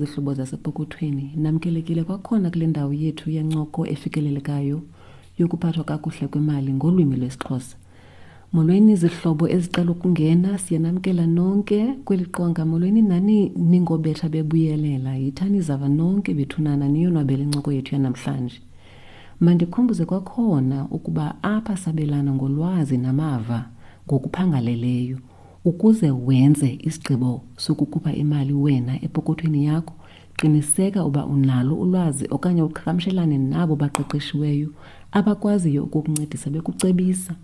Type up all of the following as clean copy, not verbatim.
zihlobo zasepokothweni, namkelekile kwakhona kule ndawo yethu yencoko efikelelekayo yokuphathwa kakuhle kwemali ngolwimi lwesiXhosa. Molweni zihlobo ezicela ukungena, siyanamkela nonke kweli qonga. Molweni nani ningobetha bebuyelela, yithani zava nonke bethunana niyonwabele incoko yethu yanamhlanje. Mandikhumbuze kwakhona ukuba apha sabelana ngolwazi namava ngokuphangaleleyo ukuze wenze isigqibo sokukhupha imali wena epokothweni yakho. Qiniseka uba unalo ulwazi okanye uqhagamshelane nabo baqeqeshiweyo abakwaziyo ukukuncedisa bekucebisa.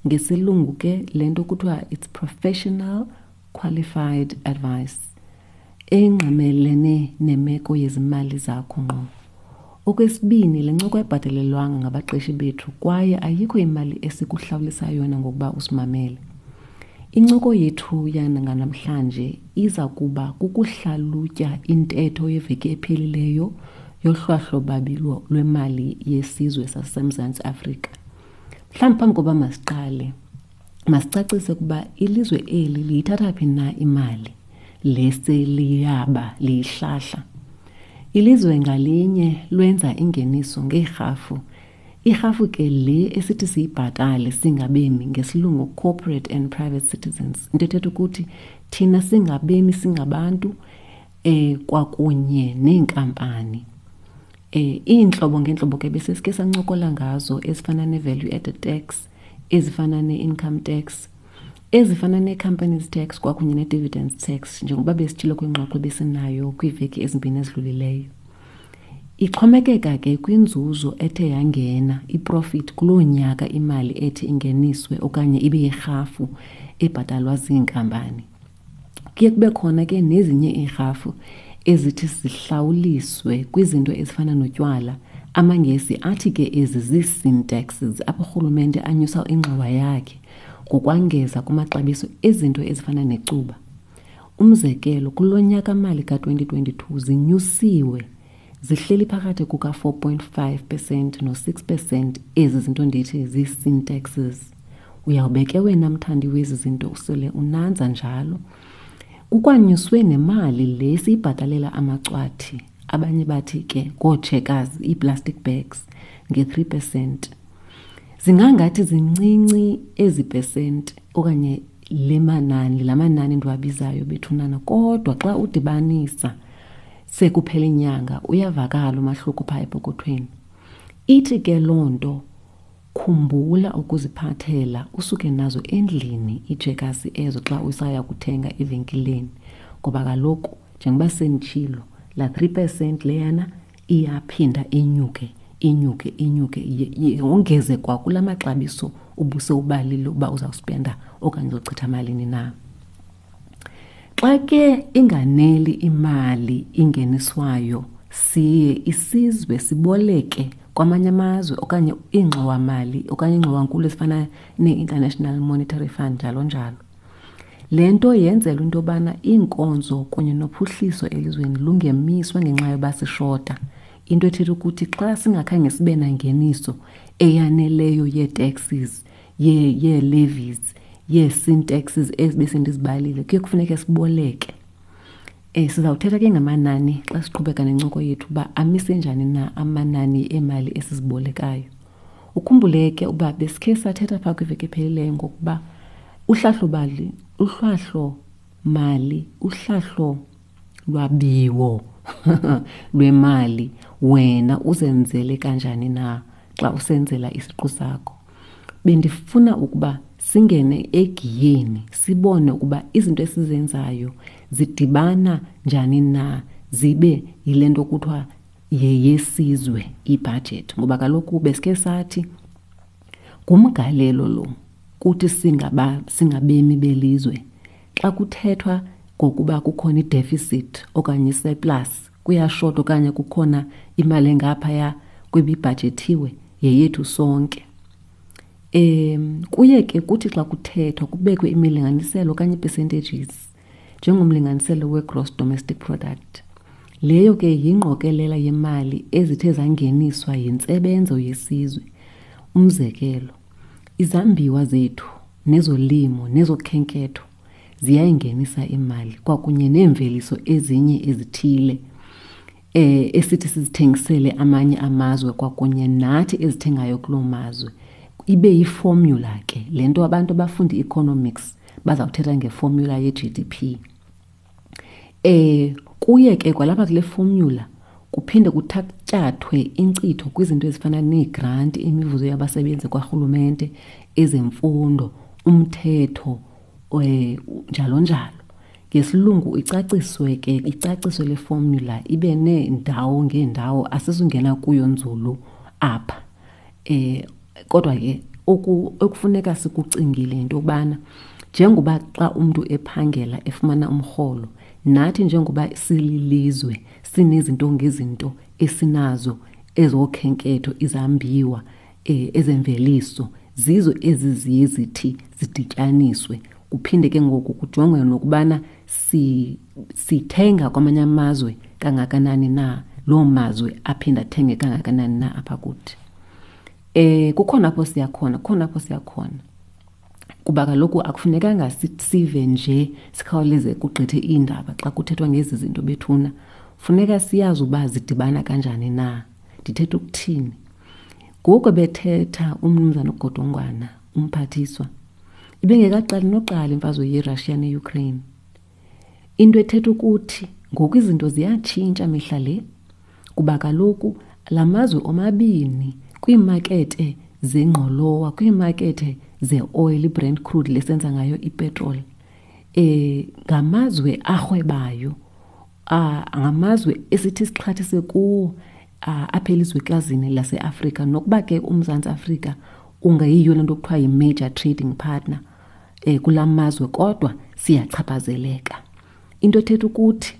Ngesilungu ke le nto kuthiwa it's professional qualified advice engqamelene nemeko yezimali zakho ngqo. Okwesibini, le ncoko ayibhatalelwanga ngabaqeshi bethu kwaye ayikho imali esikuhlawulisa yona ngokuba usimamele. Incoko yethu yanganamhlanje iza kuba kukuhlalutya intetho yeveki ephelileyo yohlwahlo-babi lwemali yesizwe saseMzantsi Afrika. Mhlawumbi phambi koba masiqale, masicacise ukuba ilizwe eli liyithatha phi na imali le seliyaba liyihlahla. Ilizwe ngalinye lwenza ingeniso ngeerhafu. Irhafu ke le esithi siyibhatale singabemi, ngesilungu corporate and private citizens. Into ethetha ukuthi thina singabemi singabantu kwakunye neenkampani. Iintlobo ngeentlobo ke besesike sancokola ngazo ezifana ne-value added tax, ezifana ne-income tax, ezifana nee-companies tax kwakunye ne-dividends tax, njengoba besitshilo kwingxoxo ebesinayo kwiiveki ezimbini ezidlulileyo. Ixhomekeka ke kwinzuzo ethe yangena, iprofit, kuloo nyaka imali ethi ingeniswe okanye ibe yirhafu ebhatalwa ziinkampani. Kuye kube khona ke nezinye iirhafu ezithi zihlawuliswe kwizinto ezifana notywala. AmaNgesi athi ke ezi zii-sin taxes, apho urhulumente anyusa ingxowa yakhe ngokwangeza kumaxabiso ezinto ezifana necuba. Umzekelo, kulo nyaka-mali ka-2022 zinyusiwe, zihleli phakathi kuka-4.5% no-6% ezi zinto ndithi zii-sin taxes. Uyawube ke wena mthandi wezi zinto usele unanza njalo. Kukwanyuswe nemali le siyibhatalela amacwathi, abanye bathi ke ngootshekazi, ii-plastic bags, nge-3%. Zingangathi zincinci ezi pesenti okanye le manani, la manani ndiwabizayo bethunana, kodwa xa udibanisa sekuphela inyanga uyavakala umahluko phaa epokothweni. Ithi ke loo nto khumbula ukuziphathela usuke nazo endlini iijekasi ezo xa usaya kuthenga evenkileni, ngoba kaloku njengoba senditshilo laa 3% leyana iyaphinda inyuke, inyuke, inyuke, yongeze kwa kula maxabiso ubusewubalile uba uzawuspenda okanye uzochitha malini na. Xa ke inganeli imali ingeniswayo, siye isizwe siboleke kwamanye amazwe okanye iingxowamali okanye iingxowankulu ezifana nee-International Monetary Fund njalo njalo. Le nto yenzelwa into yobana iinkonzo kunye nophuhliso elizweni lungemiswa ngenxa yoba sishota. Into ethetha ukuthi xa singakhange sibe nangeniso eyaneleyo yee-taxes, yee-levies, yee-sin taxes ezi besendizibalile, kuye kufuneke siboleke. Sizawuthetha ke ngamanani xa siqhubeka nencoko yethu uba amise njani na amanani emali esizibolekayo. Ukhumbule ke uba besikhe sathetha phaa kwiveki ephelileyo ngokuba uhlahlo-mali, uhlahlo-mali, uhlahlo lwabiwo lwemali wena uzenzele kanjani na xa usenzela isiqu sakho. Bendifuna ukuba singene egiyeni sibone ukuba izinto esizenzayo zidibana njani na zibe yile nto kuthiwa yeyesizwe ibhajethi, ngoba kaloku besikhe sathi ngumgalelo lo kuthi singabemi belizwe. Xa kuthethwa ngokuba kukhona i-deficit okanye i-surplus, kuyashota okanye kukhona imali engaphaya kwebibhajethiwe, yeyethu sonke. Kuye ke kuthi xa kuthethwa kubekwe imilinganiselo okanye ii-percentages njengomlinganiselo we-gross domestic product. Leyo ke yingqokelela yemali ezithe zangeniswa yintsebenzo yesizwe. Umzekelo, izambiwa zethu nezolimo nezokhenketho ziyayingenisa imali kwakunye neemveliso ezinye ezithile. eh esithi sizithengisele amanye amazwe kwakunye nathi ezithengayo kuloo mazwe ibe yiformula ke le nto abantu abafunda i-economics bazawuthetha ngeformula ye-GDP. Eh kuye ke kwalapha kule formula kuphinde kuthatyathwe inkcitho kwizinto ezifana neegranti, imivuzo yabasebenzi kwarhulumente, ezemfundo, umthetho, eh njalo njalo. Ngesilungu icaciswe ke icaciswe le formula ibe neendawo ngeendawo asizungena kuyo nzulu apha. Eh kodwa ke oku okufuneka sikucingile yinto yokubana njengoba xa umntu ephangela efumana umrholo nathi njengoba sililizwe sinezinto ngezinto esinazo ezokhenketho izambiwa eh, ezemveliso zizo ezi ziye zithi zidityaniswe kuphinde ke ngoku kujongwe nokubana si, sithenga kwamanye amazwe kangakanani na loo mazwe aphinde athenge kangakanani na apha kuthi eh kukhona apho siya khona kukhona apho siya khona kuba kaloku akufunekanga sive nje sikhawuleze kugqithe iindaba xa kuthethwa ngezi zinto bethuna funeka siyazi uba zidibana kanjani na ndithetha ukuthini ngoku bethetha umnumzana ugodongwana umphathiswa ibingekaqali noqala imfazwe yerussia neukraine Into ethetha ukuthi ngoku izinto ziyatshintsha mihla le kuba kaloku la mazwe omabini kwiimakethe zengqolowa, kwiimakethe zeoyili, iBrent crude le senza ngayo ipetroli, eh ngamazwe arhwebayo, ngamazwe esithi sixhathise kuwo apha elizwekazini laseAfrika. Nokuba ke uMzantsi Afrika ungeyiyo le nto kuthiwa yi-major trading partner, um kula mazwe kodwa siyachaphazeleka. Into ethetha ukuthi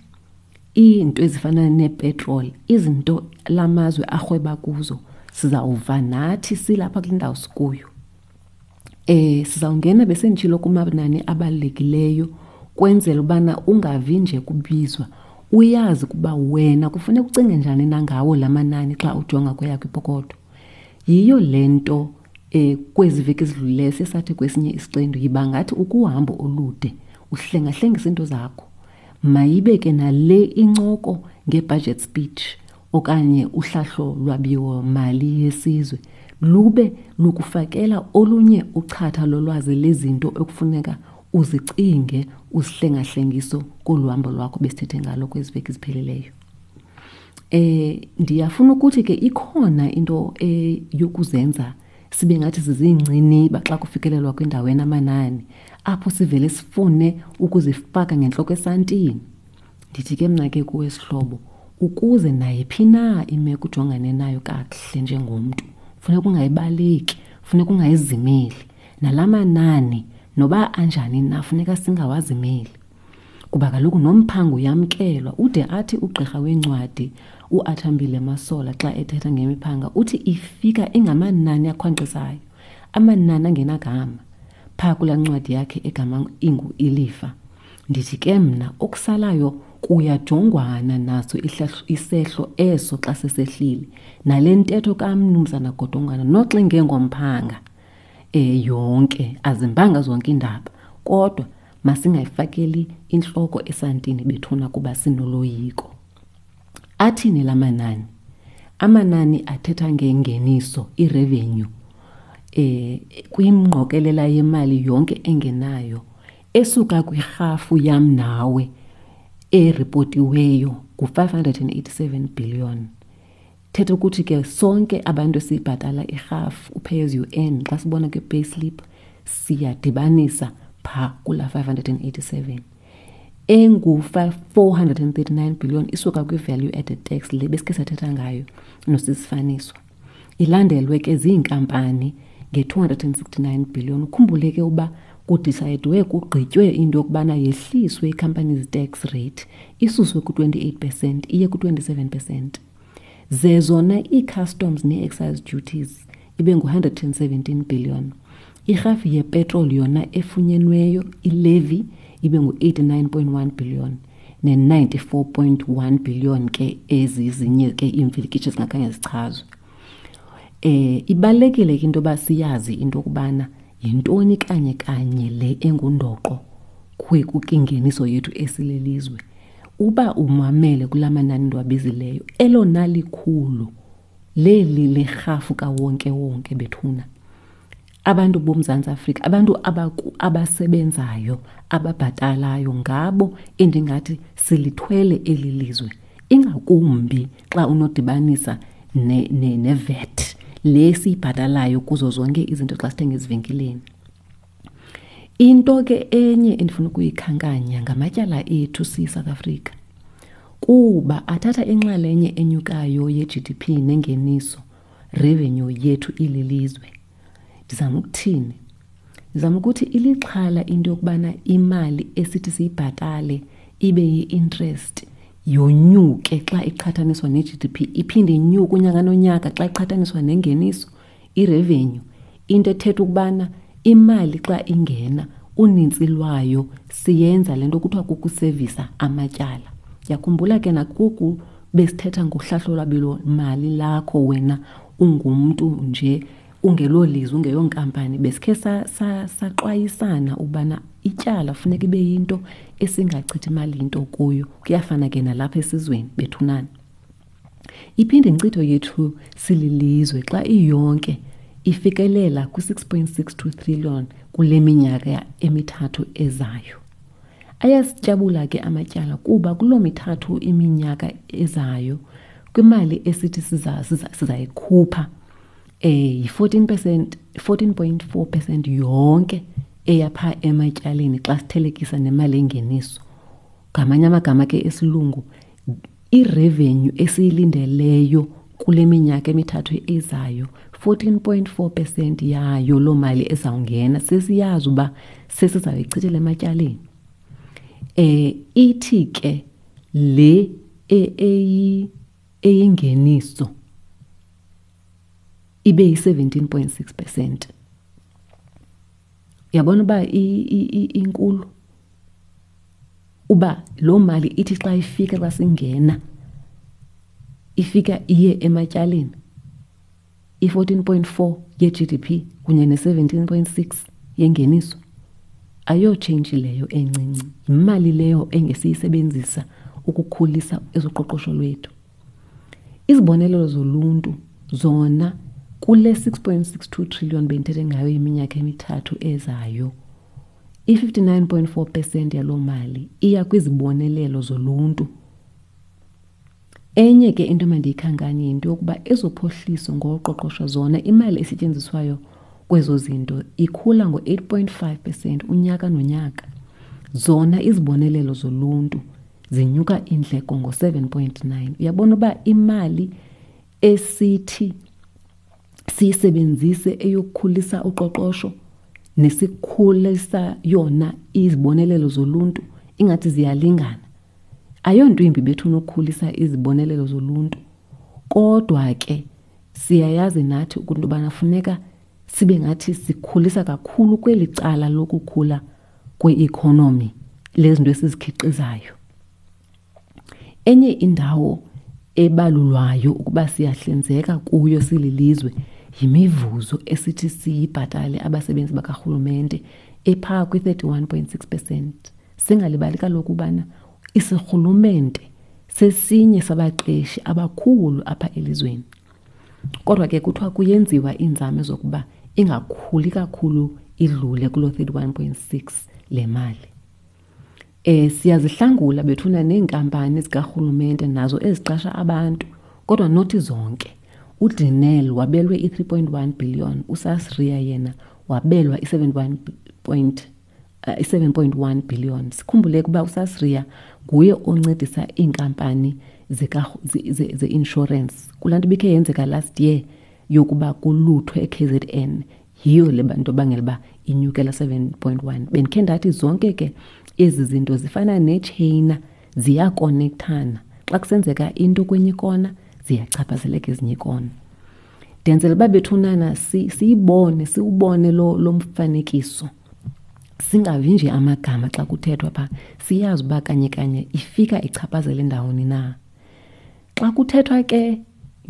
iinto ezifana neepetroli, izinto la mazwe arhweba kuzo sizawuva nathi silapha kule ndawo sikuyo. Eh sizawungena besenditshilo kumanani abalulekileyo kwenzela ubana ungavi nje kubizwa uyazi ukuba wena kufuneka ucinge njani na ngawo la manani xa ujonga kweyakho ipokotho. Yiyo le nto um kwezi veki ezidlulileyo siye sathi kwesinye isiqendu yiba ngathi ukuhambo olude uhlengahlengisa iinto zakho. Mayibe ke nale incoko nge-budget speech okanye uhlahlo lwabiwo-mali yesizwe lube lukufakela olunye uchatha lolwazi lezinto ekufuneka uzicinge uzihlengahlengiso kolu hambo lwakho besithethe ngalo kwezi veki ziphelileyo. Eh ndiyafuna ukuthi ke ikhona into eh yokuzenza sibe ngathi siziinciniba xa kufikelelwa kwindawo enamanani apho sivele sifune ukuzifaka ngentloko esantini. Ndithi ke mna ke kuwe sihlobo ukuze nayiphi na imeko ujongane nayo kakuhle njengomntu funeka ungayibaleki, funeka ungayizimeli. Nala manani noba anjani na funeka singawazimeli. Kuba kaloku nomphango uyamkelwa ude athi ugqirha weencwadi uAthambile Masola xa ethetha ngemiphanga uthi ifika ingamanani akhwankqisayo, amanani angenagama phaa kulaa ncwadi yakhe egama ingu Ilifa. Ndithi ke mna okusalayo kuyajongwana naso isehlo eso xa sesehlile nale ntetho kamnumzana Godongwana noxa ingengomphanga um yonke azimbanga zonke iindaba kodwa Masingayifakeli intloko esantini bethuna kuba sinoloyiko. Athini la manani? Amanani athetha ngengeniso, irevenue, eh kwingqokelela yemali yonke engenayo esuka kwirhafu yam nawe eripotiweyo ngu-587 billion. Thetha ukuthi ke sonke abantu esibhatala irhafu u-pay as you earn xa sibona kwi-payslip siyadibanisa phaa kula 587 engu-439 billion isuka kwi-value added tax le besikhe sathetha ngayo nosisifaniswa ilandelwe ke ziinkampani nge-269 billion ukhumbule ke uba kudisayidwe kugqitywe into yokubana yehliswe i-companies tax rate isuswe ku-28 percent iye ku-27 percent Ze zona ii-customs nee-excise duties ibe ngu-117 billion. Irhafu yepetroli yona efunyenweyo ilevi ibe ngu-89.1 billion ne-94.1 billion ke ezi zinye ke iimfilikitsho zingakhange zichazwe. Eh ibalulekile ke into yoba siyazi into yokubana yintoni kanye kanye le engundoqo kwingeniso yethu esilelizwe. Uba umamele kula manani ndiwabizileyo, elona likhulu leli lerhafu kawonkewonke bethuna. Abantu boMzantsi Afrika, abantu abasebenzayo, ababhatalayo ngabo endingathi silithwele eli lizwe, ingakumbi xa unodibanisa neVAT le siyibhatalayo kuzo zonke izinto xa sithenga ezivenkileni. Into ke enye endifuna ukuyikhankanya ngamatyala ethu siyiSouth Africa, kuba athatha inxalenye enyukayo ye-G_D_P nengeniso, revenue yethu ililizwe. Ndizama ukuthini? Ndizama ukuthi ilixhala into yokubana imali esithi siyibhatale ibe yi-interest yonyuke xa iqhathaniswa ne-G_D_P, iphinde inyuke unyaka nonyaka xa iqhathaniswa nengeniso, irevenue. Into ethetha ukubana imali xa ingena unintsi lwayo siyenza le nto kuthiwa kukusevisa amatyala. Ndiyakhumbula ke nakoku besithetha ngohlahlo lwabiwo-mali lakho wena ungumntu nje ungelolizwe, ungeyonkampani, besikhe saxwayisana ubana ityala funeka ibe yinto esingachithi imali into kuyo. Kuyafana ke nalapha esizweni bethunana. Iphinde inkcitho yethu sililizwe xa iyonke ifikelela kwi-6.62 trillion kule minyaka emithathu ezayo. Ayasityabula ke amatyala kuba kuloo mithathu iminyaka ezayo kwimali esithi sizayikhupha yi-14%, 14.4% yonke eyapha ematyaleni xa sithelekisa nemali engeniso. Ngamanye amagama ke esilungu, irevenue esiyilindeleyo kule minyaka emithathu ezayo, 14.4% yayo loo mali ezawungena sesiyazi uba sesizawuyichithela ematyaleni. Ithi ke le eyingeniso ibe yi-17.6%. Uyabona uba inkulu? Uba loo mali ithi xa ifika, xa singena, ifika iye ematyaleni, i-14.4 ye-G_D_P kunye ne-17.6 yengeniso, ayotshintshi leyo encinci. Yimali leyo engesiyisebenzisa ukukhulisa ezoqoqosho lwethu. Izibonelelo zoluntu zona kule 6.62 trillion bendithethe ngayo iminyaka emithathu ezayo, i-59.4% yaloo mali iya kwizibonelelo zoluntu. Enye ke into emandiyikhankanye yinto yokuba ezophuhliso ngoqoqosho zona imali esetyenziswayo kwezo zinto ikhula ngo-8.5% unyaka nonyaka. Zona izibonelelo zoluntu zinyuka iindleko ngo-7.9. Uyabona uba imali esithi siyisebenzise eyokukhulisa uqoqosho nesikhulisa yona izibonelelo zoluntu ingathi ziyalingana. Ayonto imbi bethu unokukhulisa izibonelelo zoluntu, kodwa ke siyayazi nathi into yobana funeka sibe ngathi sikhulisa kakhulu kweli cala lokukhula kwe-economy lezinto esizikhiqizayo. Enye indawo ebalulwayo ukuba siyahlinzeka kuyo sililizwe yimivuzo esithi siyibhatale abasebenzi bakarhulumente ephaa kwi-31.6%. Singalibali kaloku ubana isirhulumente sesinye sabaqeshi abakhulu apha elizweni. Kodwa ke kuthiwa kuyenziwa iinzame zokuba ingakhuli kakhulu idlule kuloo 31.6 le mali. Siyazihlangula bethuna neenkampani zikarhulumente nazo eziqasha abantu, kodwa nothi zonke. UDenel wabelwe i-3.1 billion, uSasria yena wabelwa i-7.1 billion. Sikhumbule ukuba uSasria nguye oncedisa iinkampani ze-insurance. Kulaa nto ibikhe yenzeka last year yokuba kuluthwe e-KZN, yiyo le nto bangela uba inyukela 7.1. Bendikhe ndathi zonke ke ezi zinto zifana netsheyina, ziyakonekthana. Xa kusenzeka into kwenye ikona, ziyachaphazeleka ezinye ikona. Ndenzela uba bethunana siyibone, siwubone lo mfanekiso. Singavi nje amagama xa kuthethwa pha, siyazi uba kanye kanye ifika ichaphazele ndawoni na. Xa kuthethwa ke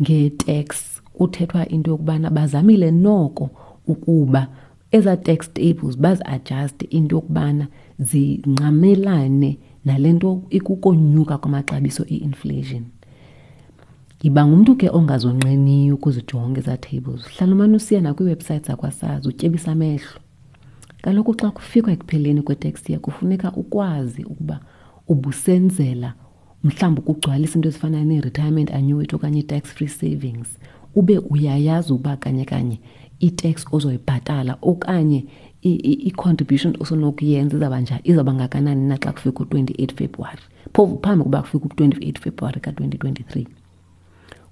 nge-tax, kuthethwa into yokubana bazamile noko ukuba eza tax tables bazi-adjust into yokubana zingqamelane nale nto ikukonyuka kwamaxabiso i-inflation. Yiba ngumntu ke ongazonqeniyo ukuzijonga ezaa tables. Hlala umane usiya nakwiiwebhusayithi zakwaSARS utyebisa amehlo. Kaloku xa kufikwa ekupheleni kwe-tax year kufuneka ukwazi ukuba ubusenzela mhlawumbi ukugcwalisa into ezifana nee-retirement annuity okanye i-tax free savings, ube uyayazi uba kanye kanye i-tax ozoyibhatala okanye i-contribution osonokuyenza izawuba njani, izawuba ngakanani na xa kufika u-28 February, phofu phambi kokuba kufike u-28 February ka-2023.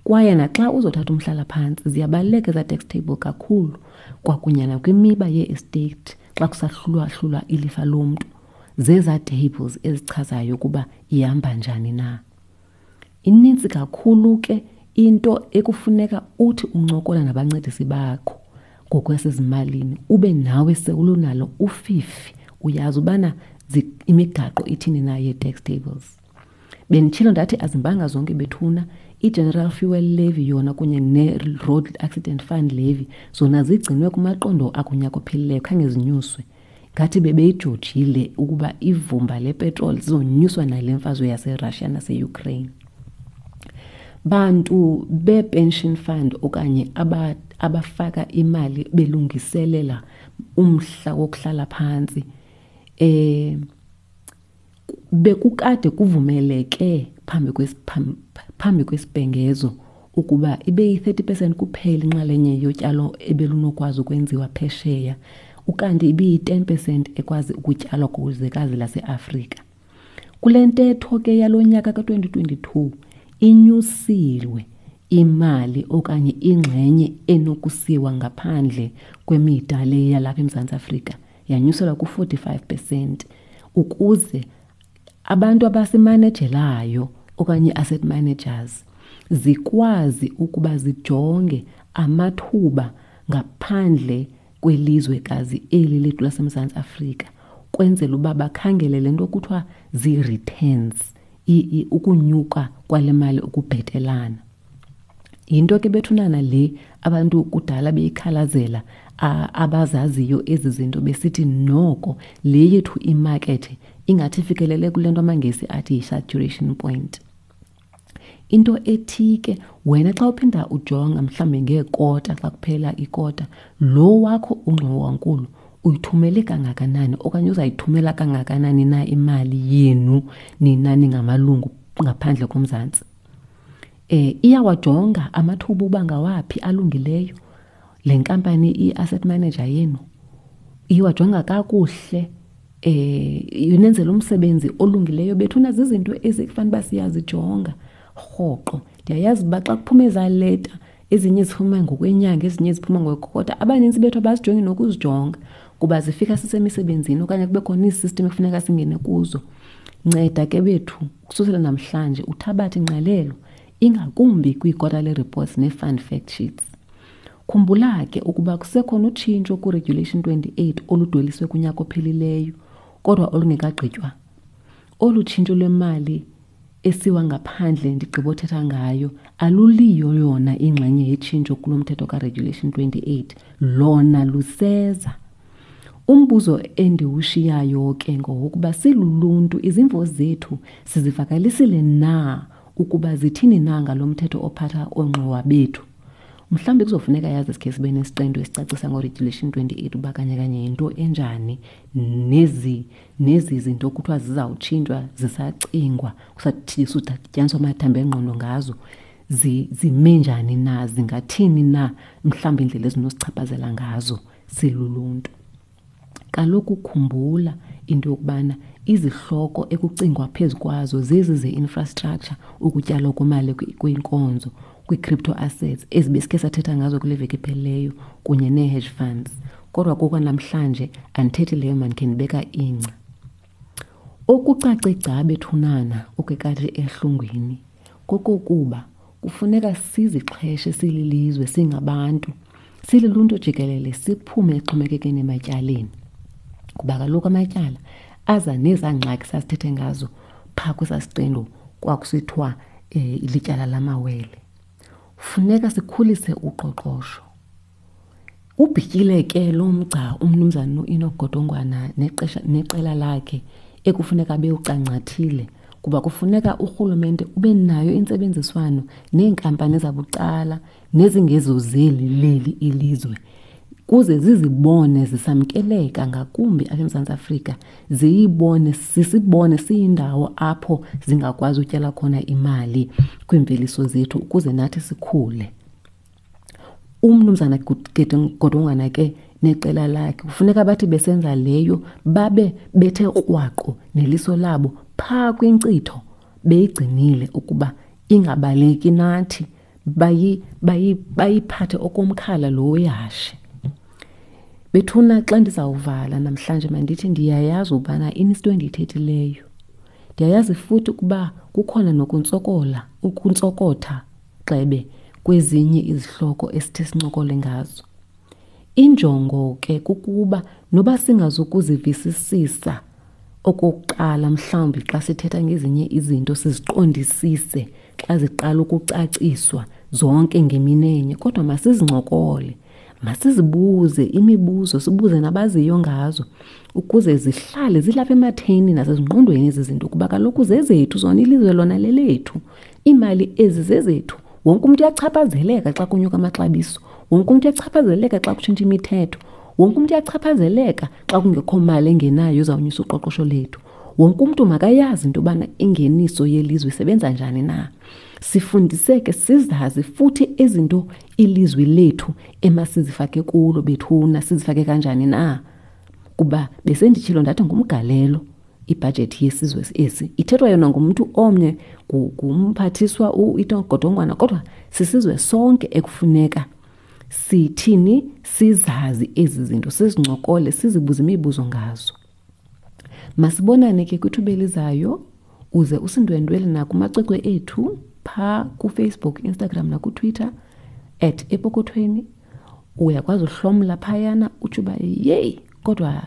Kwaye naxa uzothatha umhlalaphantsi ziyabaluleka ezaa tax table kakhulu, kwakunye nakwimiba yee-estate xa kusahlulwahlulwa ilifa lomntu, zezaa tables ezichazayo ukuba ihamba njani na. Inintsi kakhulu ke into ekufuneka uthi uncokola nabancedisi bakho ngokwasezimalini ube nawe sewulunalo ufifi, uyazi ubana imigaqo ithini na yee-tax tables. Benditshilo ndathi azimbanga zonke bethuna. I-General Fuel Levy yona kunye ne-Road Accident Fund Levy zona zigcinwe kumaqondo akunyaka ophelileyo, khange zinyuswe. Ngathi bebeyijojile ukuba ivumba lepetroli zizonyuswa nale mfazwe yaseRussia naseUkraine. Bantu be-pension fund okanye abafaka imali belungiselela umhla wokuhlala phantsi, bekukade kuvumeleke phambi kwesibhengezo ukuba ibe yi-thirty percent kuphela inxalenye yotyalo ebelunokwazi ukwenziwa phesheya, ukanti ibiyi-ten percent ekwazi ukutyalwa kwizwekazi laseAfrika. Kule ntetho ke yalo nyaka ka-2022 inyusiwe imali okanye ingxenye enokusiwa ngaphandle kwemida le yalapha eMzantsi Afrika, yanyuselwa ku-45% ukuze abantu abasimanejelayo okanye i-asset managers zikwazi ukuba zijonge amathuba ngaphandle kwelizwekazi eli lethu laseMzantsi Afrika, kwenzela uba bakhangele le nto kuthiwa zii-returns, ukunyuka kwale mali ukubhetelana. Yinto ke bethunana le abantu kudala beyikhalazela, abazaziyo ezi zinto besithi noko le yethu imakethe ingathi ifikelele kule nto amaNgesi athi yi-saturation point. Into ethi ke wena xa uphinda ujonga mhlawumbi ngeekota, xa kuphela ikota, lo wakho ungxowankulu uyithumele kangakanani okanye uzayithumela kangakanani na imali yenu nina ningamalungu ngaphandle koMzantsi. Iyawajonga amathuba uba ngawaphi alungileyo le nkampani i-asset manager yenu, iwajonga kakuhle, inenzela umsebenzi olungileyo. Bethuna zizinto ezikufanele uba siyazijonga rhoqo. Ndiyayazi uba xa kuphume ezaa leta, ezinye ziphuma ngokwenyanga, ezinye ziphuma ngokwekota, abanintsi bethu abazijongi nokuzijonga kuba zifika sisemisebenzini okanye kube khona iisistim ekufuneka singene kuzo. Nceda ke bethu ukususela namhlanje uthabathe ingqalelo ingakumbi kwii-quarterly reports nee-fund fact sheets. Khumbula ke ukuba kusekhona utshintsho ku-Regulation 28 oludweliswe kunyaka ophelileyo kodwa olungekagqitywa. Olu tshintsho lwemali esiwa ngaphandle ndigqibothetha ngayo aluliyo yona ingxenye yetshintsho kulo mthetho ka-Regulation 28, lona luseza. Umbuzo endiwushiyayo ke ngowokuba siluluntu izimvo zethu sizivakalisile na ukuba zithini na ngalo mthetho ophatha oongxowa bethu. Mhlawumbi kuzofuneka yazi sikhe sibe nesiqendu esicacisa ngo-Regulation 28 uba kanye kanye yinto enjani nezi zinto kuthiwa zizawutshintshwa zisacingwa, kusatyisaniswa amathambo engqondo ngazo, zime njani na, zingathini na mhlawumbi indlela ezinosichaphazela ngazo siluluntu. Kaloku khumbula into yokubana izihloko ekucingwa phezu kwazo zezi ze-infrastructure, ukutyalwa kwemali kwinkonzo, kwii-crypto assets ezibesikhe sathetha ngazo kule veki iphelileyo kunye nee-hedge funds. Kodwa kokwanamhlanje andithethi leyo, mandikhe ndibeka ingca. Okucace gca bethunana okwekati ehlungwini kokokuba kufuneka sizixheshe sililizwe, singabantu, siluluntu jikelele, siphume exhomekekeni ematyaleni. Kuba kaloku amatyala aza nezaa ngxaki sasithethe ngazo phaa kwesaa siqendu kwakusithiwa lityala lamawele. Funeka sikhulise uqoqosho. Ubhityile ke lo mgca umnumzana uEnoch Godongwana neqela lakhe ekufuneka bewucangcathile kuba kufuneka urhulumente ube nayo intsebenziswano neenkampani zabucala nezingezozeli leli ilizwe kuze zizibone zisamkeleka ngakumbi apha eMzantsi Afrika, ziyibone sisibone siyindawo apho zingakwazi utyala khona imali kwiimveliso zethu ukuze nathi sikhule. Umnumzana Godongwana ke neqela lakhe kufuneka bathi besenza leyo babe bethe krwaqu neliso labo phaa kwinkcitho beyigcinile ukuba ingabaleki nathi bayiphathe okomkhala lo wehashe. Bethuna xa ndizawuvala namhlanje mandithi ndiyayazi ubana inento endiyithethileyo. Ndiyayazi futhi ukuba kukhona nokuntsokola, ukuntsokotha gxebe kwezinye izihloko esithe sincokole ngazo. Injongo ke kukuba noba singazukuzivisisisa okokuqala mhlawumbi xa sithetha ngezinye izinto siziqondisise xa ziqala ukucaciswa zonke ngeminenye kodwa masizincokole masizibuze imibuzo sibuze nabaziyo ngazo ukuze zihlale zilapha ematheni nasezingqondweni ezi zinto kuba kaloku zezethu zona ilizwe lona lelethu iimali ezi zezethu wonke umntu uyachaphazeleka xa kunyuka amaxabiso wonke umntu uyachaphazeleka xa kutshintsha imithetho wonke umntu uyachaphazeleka xa kungekho mali engenayo ezawunyusa uqoqosho lethu wonke umntu makayazi into yobana ingeniso yelizwe isebenza njani na sifundiseke sizazi futhi izinto ilizwi lethu emasizifake kulo bethuna sizifake kanjani na kuba besenditshilo ndathi ngumgalelo ibhajethi yesizwe esi ithethwa yona ngumntu omnye ngumphathiswa uIto kodwa sisizwe sonke ekufuneka sithini sizazi ezi zinto sizincokole sizibuze imibuzo ngazo masibonane ke kwithuba elizayo uze usindwendwele nakumacwecwe ethu phaa kufacebook instagram nakutwitter at epokothweni uyakwazi uhlomla phayana utsho uba yeyi kodwa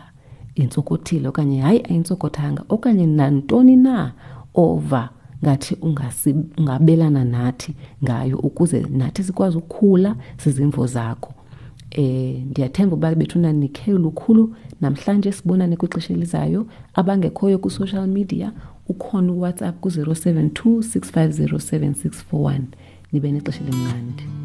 intsokothile okanye hayi ayintsokothanga okanye nantoni na ova ngathi ungabelana nathi ngayo ukuze nathi sikwazi ukukhula zizimvo zakho eh ndiyathemba uba bethuna nikhe lukhulu namhlanje sibonane kwixesha elizayo abangekhoyo ku-social media ukhona uwhatsapp ku-072 650 7641 nibe nexesha elimnandi.